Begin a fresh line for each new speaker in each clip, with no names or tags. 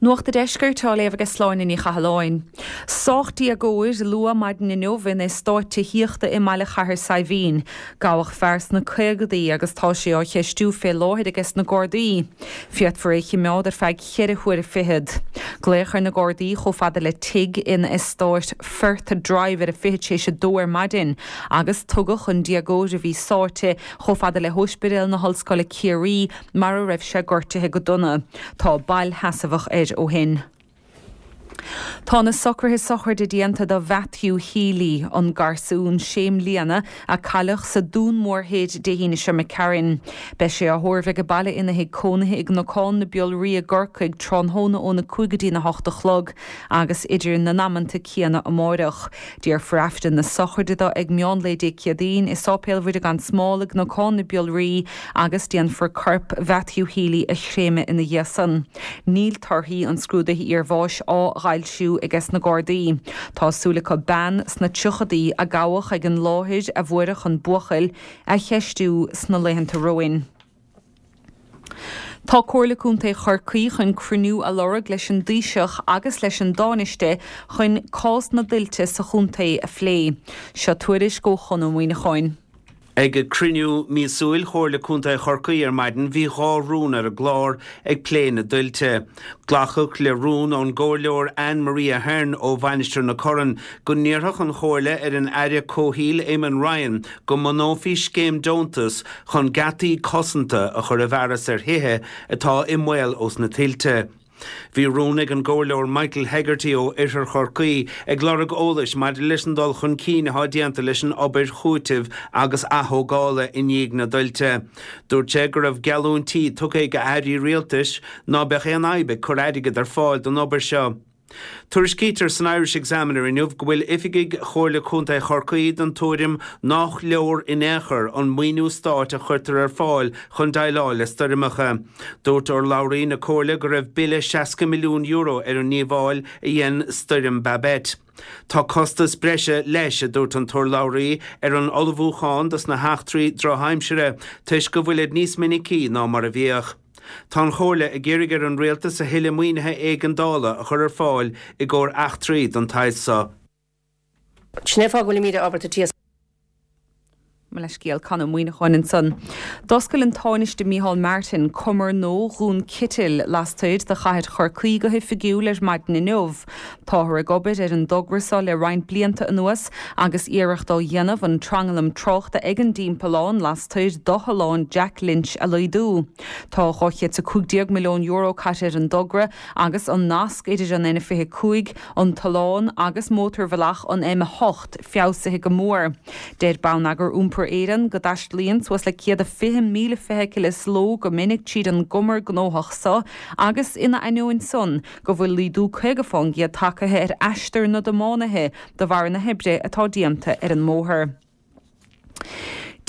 Nuacht a' Deiscirt á léamh aige Sláine Ní Chathalláin. Sádh déagóir luath maidin inniu in eastát tithíochta i mBaile Chathair Saidhbhín. Gabhadh fear sna caogadaí agus tá sé á cheistiú fé láthair aiges na Gardaí. Féadfar é chimeád ar feadh cheithre huaire fichead. Glaodh ar na Gardaí chomh fada le tigh in eastát Firth Drive ar a fichead théis a dó ar maidin agus tugadh an déagóir a bhí sáite chomh fada le hÓispidéal na hOllscoile Ciarraí mar a raibh sé gortaithe go dona. Tá bail sheasmhach air ó shin. Tá na socruithe sochraide déanta do Mhatthew Healy, an garsún sé mbliana a cailleadh sa Dún Mór Thoir Dé hAoine seo imigh tharainn. Beidh sé á thórramh age baile ina thigh cónaithe i gCnocán na Biolraí i gCorcaigh tráthnóna óna 5 go dtína 8 a chlog agus idir na n-amanta céanna amáireach. Déarfar Aifreann na sochraide dó ag meán lae Dé Céadaoin i Sáipéal Mhuire gan Smál i gCnocán na Biolraí agus déanfar corp Mhatthew Healy a chréamadh ina dhiaidh san. Níl torthaí an scrúdaithe iarbháis á bhfoilsiú aiges na Gardaí. Tá súil acu bean sna tríochadaí a gabhadh ag an láthair a fuaireadh an buachaill, a cheistiú sna laethanta romhainn. Tá Comhairle Contae Chorcaí chun cruinniú a lorg leis an dTaoiseach agus leis an dTánaiste chun cás na dtuilte sa chontae a phlé. Seo tuairisc ó Chon Ó Muíneacháin.
Ag cruinniú míosúil Chomhairle Contae Chorcaí ar maidin bhí 2 rún ar an gclár ag plé na dtuilte. Glacadh le rún ón gComhairleoir Anne Marie Ahern ó Mhainistir na Corann go n-iarrfadh an Chomhairle ar an Aire Comhshaoil Eamon Ryan go mbunófaí scéim deontas chun geataí cosanta a chur i bhfearas ar thithe atá i mbaol ós na tuilte. Bhí rún ag an gComhairleoir Michael Hegarty ó Oirthear Chorcaí ag lorg eolais maidir leis an dul chun cinn atá déanta leis an obair chúitimh agus athógála i ndiaidh na dtuilte. Dúirt sé go raibh geallúintí tugtha ag airí rialtais ná beadh aon fhadhb ag cur airgead ar fáil don obair seo. Tuairiscítear san Irish Examiner inniu go bhfuil oifigigh Chomhairle Contae Chorcaí den tuairim nách leor in aon chor an maoiniú stáit a chuirtear ar fáil chun déileáil le stoirmeacha. Dúirt urlabhraí na Comhairle go raibh bille €60 milliún ar an ndíobháil a dhein Stoirm Babet. Tá costas breise leis, a dúirt an t-urlabhraí, ar an ullmhúchán dos na heachtraí drochaimsire toisc go bhfuilid níos minicí ná mar a bhíodh. Tá an Chomhairle ag iarraidh ar an Rialtas a thuilleadh maoinithe éigeandála a chur ar fáil i gcomhair eachtraí den tsaghas
so. Sin é fáth go bhfuilimíd ábalta t-iasc.
Mo leithscéal, Con Ó Muíneacháin ansan. D'oscail an Tánaiste Micheál Martin cumar nua Dhún Citil lastoir de chathair Chorcaí go hoifigiúil ar maidin inniu. Táthar ag obair ar an dtogra seo le roinnt blianta anuas agus iarracht á dhéanamh an tranglam tráchta ag an dtimpeallán lastoir d'Otharlann Jack Lynch a laghdú. Tá €215 milliún caite ar an dtogra agus an nasc idir an N25, an tollán agus mótarbhealach an M8 feabhsaithe go mór. Deir Bonneagar Iompair Éireann go dtaistealaíonn suas le 120,000 feithicil sa ló go minic tríd an gcumar gnóthach so agus ina ainneoin san go bhfuil laghdú 50 fán gcéad tagtha ar aistear na dtiománaithe de bharr na hoibre atá déanta ar an mbóthar.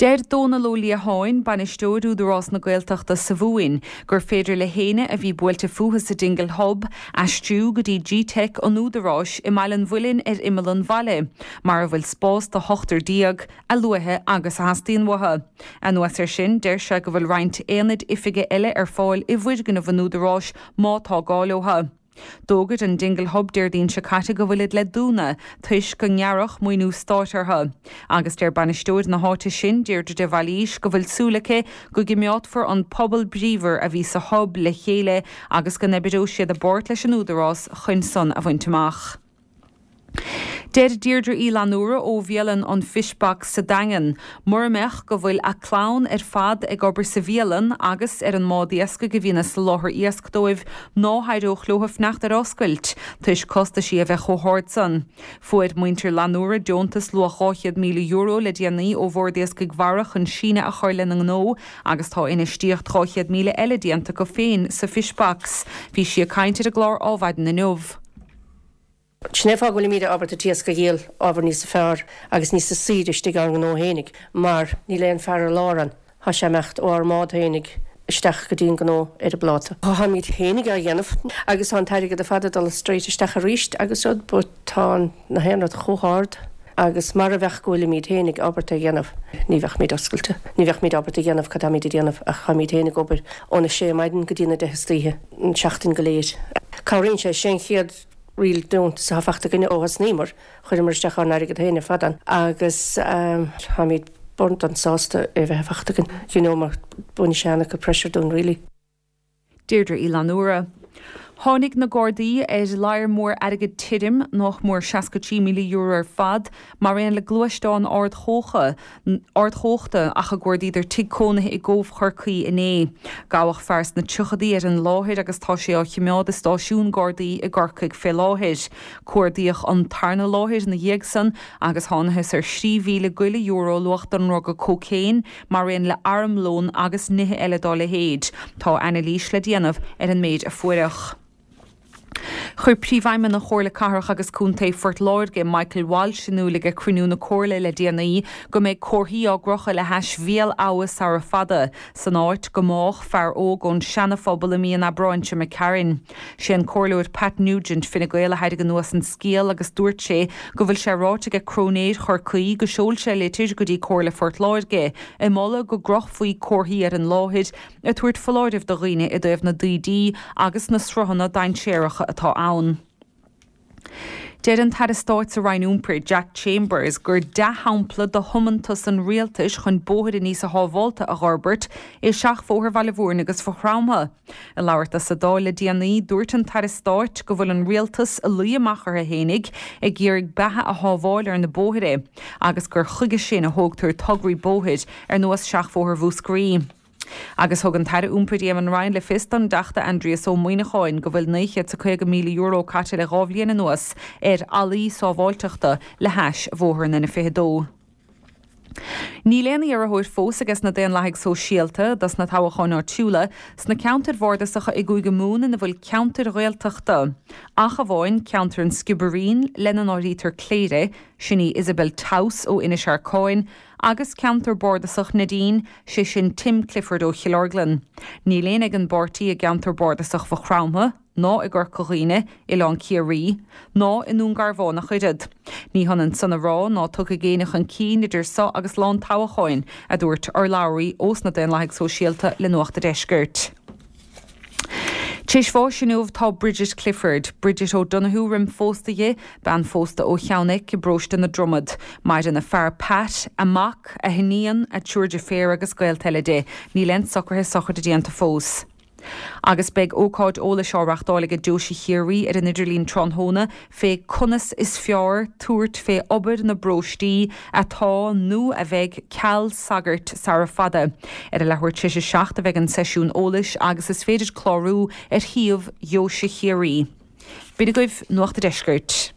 Deir Dónal Ó Liatháin, Bainisteoir Údarás na Gaeltachta sa Mhumhain, gur féidir le héinne a bhí buailte fúthu sa Dingle Hub aistriú go dtí Gteic an Údaráis i mBaile an Mhuilinn ar imeall an bhaile, mar a bhfuil spás do hochtar déag, a luaithe agus a theastaíonn uathu. Anuas air sin, deir sé go bhfuil roinnt aonaid oifige eile ar fáil i bhfoirgneamh an Údaráis má tá gá leo. D'fhógair an Dingle Hub Déardaoin seo caite go bhfuilid le dúnadh toisc go ngearradh maoiniú stáit orthu. Agus deir bainisteoir na háite sin, Deirdre de Bhailís, go bhfuil súil aici go gcimeádfar an pobal bríomhar a bhí sa Hub le chéile agus go n-oibreoidh siad i bpáirt leis an Údarás chun san a bhaint amach. Deir Deirdre Uí Fhlannúra ó bhialann an Fish Box sa Daingean, mura mbeadh go bhfuil a clann ar fad ag obair sa bhialann agus ar an mbád iascaigh a bhíonn ag soláthar iasc dóibh, ná héireodh leo fanacht ar oscailt, toisc costaisí a bheith chomh hard san. Fuair muintir Fhlannúra deontas luach €200,000 le déanaí ó Bhord Iascaigh Mhara chun síneadh a chur lena ngnó agus tá infheistíocht 200,000 eile déanta acu féin sa Fish Box. Bhí sí ag caint ar an gclár Ádhmhaidin inniu.
Sin é fáth go bhfuilimíd ábalta t-iasc a dhíol ábhar níosa fearr agus níosa saoire istigh ár ngnó fhéinig mar níl aon fear ar lár ann. Thá sé imeacht ó ár mbád fhéinig isteach go dtí an gnó ar an bpláta. Tháimíd fhéinig á dhéanamh agus tá an t-airgead ar fad ag dul straight isteach aríst agus rud but tá na haon rud chomh hard agus mara bheadh go bhfuilimíd fhéinig ábalta a dhéanamh ní bheadh-míd oscailte. Ní bheadh-míd ábalta a dhéanamh cad táimíd a déanamh ach táimíd fhéinig ag obair óna sé maidin go dtí na deich istoíche. an tseachtain go léir. Cabhraíonn sé, sé an chéad real deontas atá fachta againne ó thosnaíomar, chuireamar isteach ár n-airgead féin ar fad ann agus táimid burned sásta é a bheith fachta againn, you know, mar baineann sé an-chuid pressure dúinn really.
Deirdre Uí Fhlannúra. Tháinig na Gardaí ar ladhar mór airgid tirim, nách mór €63,000 ar fad, mar aon le gluaisteán ardchumhachta ach a gcuardaíodar tigh cónaithe i gCóbh Chorcaí inné. Gabhadh fear sna tríochadaí ar an láthair agus tá sé á chimeád i stáisiún Gardaí i gCorcaigh fé láthair. Cuardaíodh an tarna láthair ina dhiaidh san agus thánathas ar 3,000 go leith euro luach den ndruga cócaon, mar aon le armlón agus nithe eile dá leithéid. Tá anailís le déanamh ar an méid a fuaireadh. Chuir Príomhfheidhmeannach Chomhairle Cathrach agus Contae Phort Láirge, Michael Walsh, in iúl ag cruinniú na Comhairle le déanaí go mbeidh comharthaí á gcrochadh le hais Bhéal Abha sara fada, san áit go mbádh fear óg ón Seana-Phobal i mí an Aibreáin seo imigh tharainn. Sé an Comhairleoir Pat Nugent, Fine Gael a thairg anuas an scéal agus dúirt sé go bhfuil sé ráite aige Cróinéir Chorcaí go seol sé litir go dtí Comhairle Phort Láirge ag moladh go gcrochfaí comharthaí ar an láthair ag tabhairt foláirimh do dhaoine i dtaobh na dtaoidí agus na sruthanna dainséaracha atá ann. Deir an tAire Stáit sa Roinn Iompair, Jack Chambers, gur dea-shampla de thiomantas an rialtais chun bóithre níosa shábhálta a dh'fhorbairt é Seachbhóthar Bhaile Mhúirne agus Mhaigh Chromtha. Ag labhairt dó sa Dáil le déanaí, dúirt an tAire Stáit go bhfuil an rialtas ag luí amach orthu fhéinig ag iarraidh beatha a shábháil ar na bóithre agus gur chuige sin a thógtar tograí bóthair ar nós Seachbhóthar Mhúscraí. Agus thug an tAire Iompair Eamon Ryan le fios don dTeachta Aindrias Ó Muimhneacháin go bhfuil €950,000 caite le 2 bhliain anuas ar fhallaí sábháilteachta le hais bhóthar an N22. Níl aon iarrthóir fós aige sna Daonlathaigh Sóisialta dos na toghacháin áitiúla sna ceantair bhardasacha i gCúige Mumhan ina bhfuil ceantair Ghaeltachta, ach amháin ceantar an Sciobairín, lena n-áirítear Cléire, sin í Isabel Towse ó Inis Arcáin, agus ceantar bardasach Neidín, sé sin Tim Clifford ó Chill Orglan. Níl éinne ag an bpáirtí i gceantar bardasach Mhaigh Chromtha, ná i gCorca Dhuibhne, Oileán Ciarraí, ná i nDún Garbhán ach oiread. Ní hionann san a rá ná tiocfaidh éinne chun cinn idir so agus lá an toghacháin, a dúirt urlabhraí ós na Daonlathaigh Sóisialta le Nuacht a' Deiscirt. T'éis bháis inniu tá Bridget Clifford, Bridget O'Donoghue roim phósta dhi, bean phósta ó Cheann Eich i bparóiste na Dromad. Maireann a fear Pat, a mac, a hiníon, a triúr deirféar agus gaolta eile di. Níl aon socruithe sochraide déanta fós. Agus beidh ócáid eolais á reachtáil aige Deoise Chiarraí ar an idirlíon tráthnóna fé conas is fearr tabhairt fé obair na bparóistí atá nó a bheidh ceal sagairt sara fada. Ar a leathuair tar éis a 7 a bheidh an seisiún eolais agus is féidir clárú ar shuíomh Dheoise Chiarraí. B'in agaibh Nuacht a' Deiscirt.